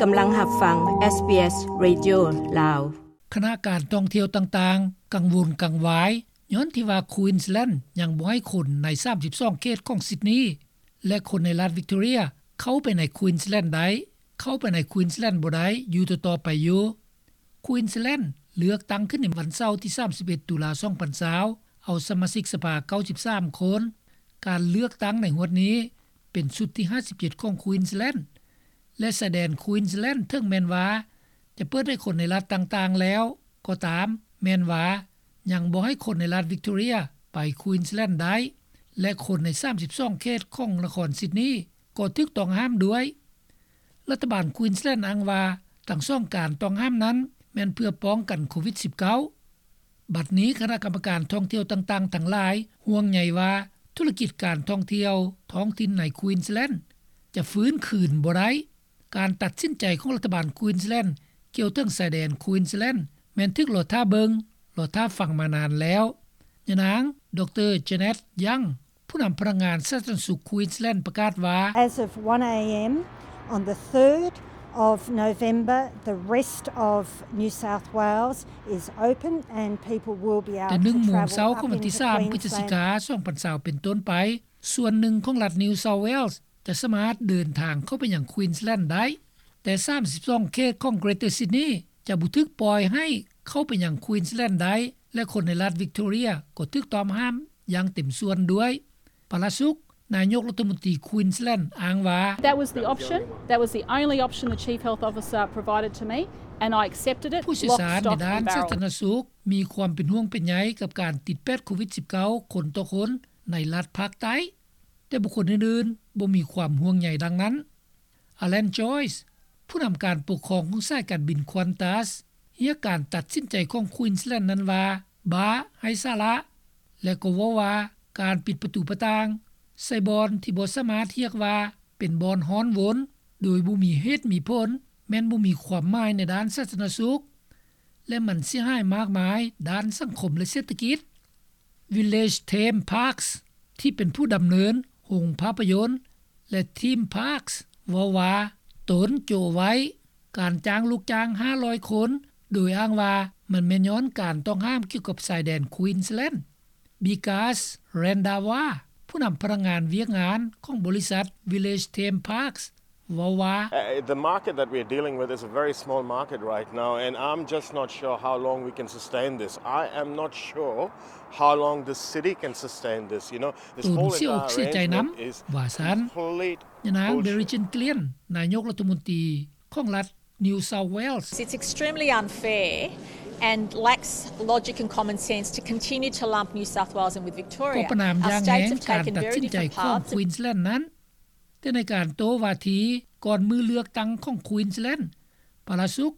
ກຳລັງຮັບຟັງ ເອສບີເອສ ເຣດິໂອ ລາວ. ຄະນະການທ່ອງທ່ຽວຕ່າງໆ ກັງວົນກັງວາຍ ຍ້ອນທີ່ວ່າ Queensland ຍັງບໍ່ໃຫ້ຄົນໃນ ສາມສິບສອງ ເຂດຂອງ Sydney ແລະ ຄົນໃນລັດ Victoria ເຂົ້າໄປໃນ Queensland ໄດ້, ເຂົ້າໄປໃນ Queensland ບໍ່ໄດ້ ຢູ່ຕໍ່ໆໄປຢູ່. Queensland ເລືອກຕັ້ງຂຶ້ນໃນວັນເສົາທີ ສາມສິບເອັດ ຕຸລາ ສອງພັນຊາວ ເອົາສະມາຊິກສະພາ ເກົ້າສິບສາມຄົນ. ການເລືອກຕັ້ງໃນງວດນີ້ ເປັນຊຸດທີ ຫ້າສິບເຈັດ ຂອງ Queensland ແລະ ຊາຍແດນ Queensland ເຖິງແມ່ນວ່າຈະເປີດໃຫ້ຄົນໃນລັດຕ່າງໆແລ້ວກໍຕາມ, ແມ່ນວ່າຍັງບໍ່ໃຫ້ຄົນໃນລັດ Victoria ໄປ Queensland ໄດ້ ແລະ ຄົນໃນ ສາມສິບສອງ ເຂດຂອງນະຄອນ Sydney ກໍຖືກຕ້ອງຫ້າມດ້ວຍ. ລັດຖະບານ Queensland ອ້າງວ່າ ທັງສອງການຕ້ອງຫ້າມນັ້ນ ແມ່ນເພື່ອປ້ອງກັນໂຄວິດ ສິບເກົ້າ. ບັດນີ້ຄະນະກຳມະການທ່ອງທ່ຽວຕ່າງໆທັງຫຼາຍ ຫ່ວງໃຍວ່າທຸລະກິດການທ່ອງທ່ຽວທ້ອງຖິ່ນໃນ Queensland ຈະຟື້ນຄືນບໍ່ໄດ້. ການຕັດສິນໃຈຂອງລັດຖະບານ Queensland ກ່ຽວເຖິງຊາຍແດນ Queensland ແມ່ນຖືກລໍຖ້າເບິ່ງ, ລໍຖ້າຟັງມານານແລ້ວ. ຍານາງ ດຣ Janet Young ຜູ້ນຳພະນັກງານສາທາລະນະສຸກ Queensland ປະກາດວ່າ As of one a.m. on the third of November, the rest of New South Wales is open and people will be able to travel up into Queensland. ແຕ່ໜຶ່ງໂມງເຊົ້າຂອງວັນທີສາມ ພຶສຈິກາ ສອງພັນຊາວ ເປັນຕົ້ນໄປ, ສ່ວນໜຶ່ງຂອງລັດ New South Wales ຈະສາມາດເດີນທາງເຂົ້າໄປຍັງ Queensland ໄດ້, ແຕ່ ສາມສິບສອງ ເຂດຂອງ Greater Sydney ຈະບໍ່ຖືກປ່ອຍໃຫ້ເຂົ້າໄປຍັງ Queensland ໄດ້ ແລະ ຄົນໃນລັດ Victoria ກໍຖືກຕ້ອງຫ້າມຢ່າງເຕັມສ່ວນດ້ວຍ. ປະລາສຸກ ນາຍົກລັດຖະມົນຕີ Queensland ອ້າງວ່າ That was the option. That was the only option the Chief Health Officer provided to me, and I accepted it. ຜູ້ຊ່ຽວຊານໃນດ້ານສາທາລະນະສຸກມີຄວາມເປັນຫ່ວງເປັນໃຍກັບການຕິດແປດໂຄວິດ ສິບເກົ້າ ຄົນຕໍ່ຄົນໃນລັດພາກໃຕ້, ແຕ່ບຸກຄົນອື່ນໆບໍ່ມີຄວາມຫ່ວງໃຍດັ່ງນັ້ນ. Alan Joyce ຜູ້ນຳການປົກຄອງຂອງສາຍການບິນ Qantas ຮຽກການຕັດສິນໃຈຂອງ Queensland ນັ້ນວ່າ ບ້າໄຮ້ສາລະ ແລະ ກໍເວົ້າວ່າການປິດປະຕູປະຕ່າງໃສ່ບ່ອນທີ່ບໍ່ສາມາດຮຽກວ່າເປັນບ່ອນຮ້ອນວົນໂດຍບໍ່ມີເຫດມີຜົນ ແມ່ນບໍ່ມີຄວາມໝາຍໃນດ້ານສາທາລະນະສຸກ ແລະ ມັນເສຍຫາຍມາກມາຍດ້ານສັງຄົມ ແລະ ເສດຖະກິດ. Village Theme Parks ທີ່ເປັນຜູ້ດຳເນີນໂຮງພາບພະຍົນ ແລະ Theme Parks ເວົ້າວ່າ ຕົນໂຈະໄວ້ການຈ້າງລູກຈ້າງ ຫ້າຮ້ອຍຄົນ ໂດຍອ້າງວ່າມັນແມ່ນຍ້ອນການຕ້ອງຫ້າມກ່ຽວກັບຊາຍແດນ Queensland. Bikas Randhawa ຜູ້ນຳພະນັກງານວຽກງານຂອງບໍລິສັດ Village Theme Parks ເວົ້າວ່າ Uh, the market that we're dealing with is a very small market right now, and I'm just not sure how long we can sustain this. I am not sure how long the city can sustain this, you know. This whole entire arrangement is complete bullshit. ຕົນເສຍອົກເສຍໃຈນຳ ວ່າຊັ້ນ. ຍານາງ Berejiklian ນາຍົກລັດຖະມົນຕີຂອງລັດ New South Wales. It's extremely unfair and lacks logic and common sense to continue to lump New South Wales in with Victoria. ກໍປະນາມຢ່າງແຮງການຕັດສິນໃຈຂອງ Queensland ນັ້ນ, ແຕ່ໃນການໂຕ້ວາທີກ່ອນມື້ເລືອກຕັ້ງຂອງ Queensland, ປະລາສຸກ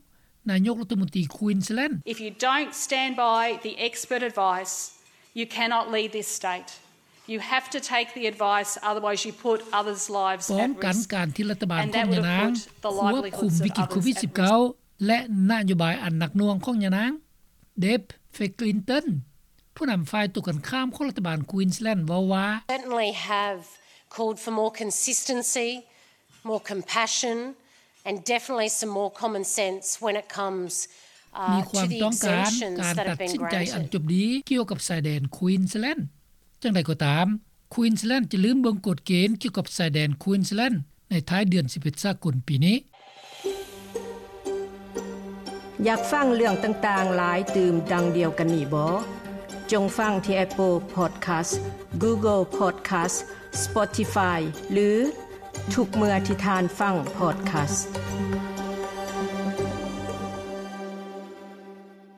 ນາຍົກລັດຖະມົນຕີ Queensland. If you don't stand by the expert advice, you cannot lead this state. You have to take the advice, otherwise you put others' lives at risk. ປ້ອງກັນການທີ່ລັດຖະບານຂອງຍານາງຄວບຄຸມວິກິດໂຄວິດ ສິບເກົ້າ ແລະ ນະໂຍບາຍອັນໜັກໜ່ວງຂອງຍານາງ. Deb Fickleton ຜູ້ນຳຝ່າຍຕົງກັນຂ້າມຂອງລັດຖະບານ Queensland ເວົ້າວ່າ Certainly have called for more consistency, more compassion, and definitely some more common sense when it comes, uh, to the exemptions that have been granted. ມີຄວາມຕ້ອງການການຕັດສິນໃຈອັນຈົບດີກ່ຽວກັບຊາຍແດນ Queensland. ຢ່າງໃດກໍຕາມ, Queensland ຈະລືມເບິ່ງກົດເກນກ່ຽວກັບຊາຍແດນ Queensland ໃນທ້າຍເດືອນສິບເອັດສາກົນປີນີ້. ຢາກຟັງເລື່ອງຕ່າງໆຫຼາຍຕື່ມດັ່ງດຽວກັນນີ້ບໍ? ຈົ່ງຟັງທີ່ Apple Podcast, Google Podcast, Spotify ຫຼື ທຸກເມື່ອທີ່ທ່ານຟັງ podcast.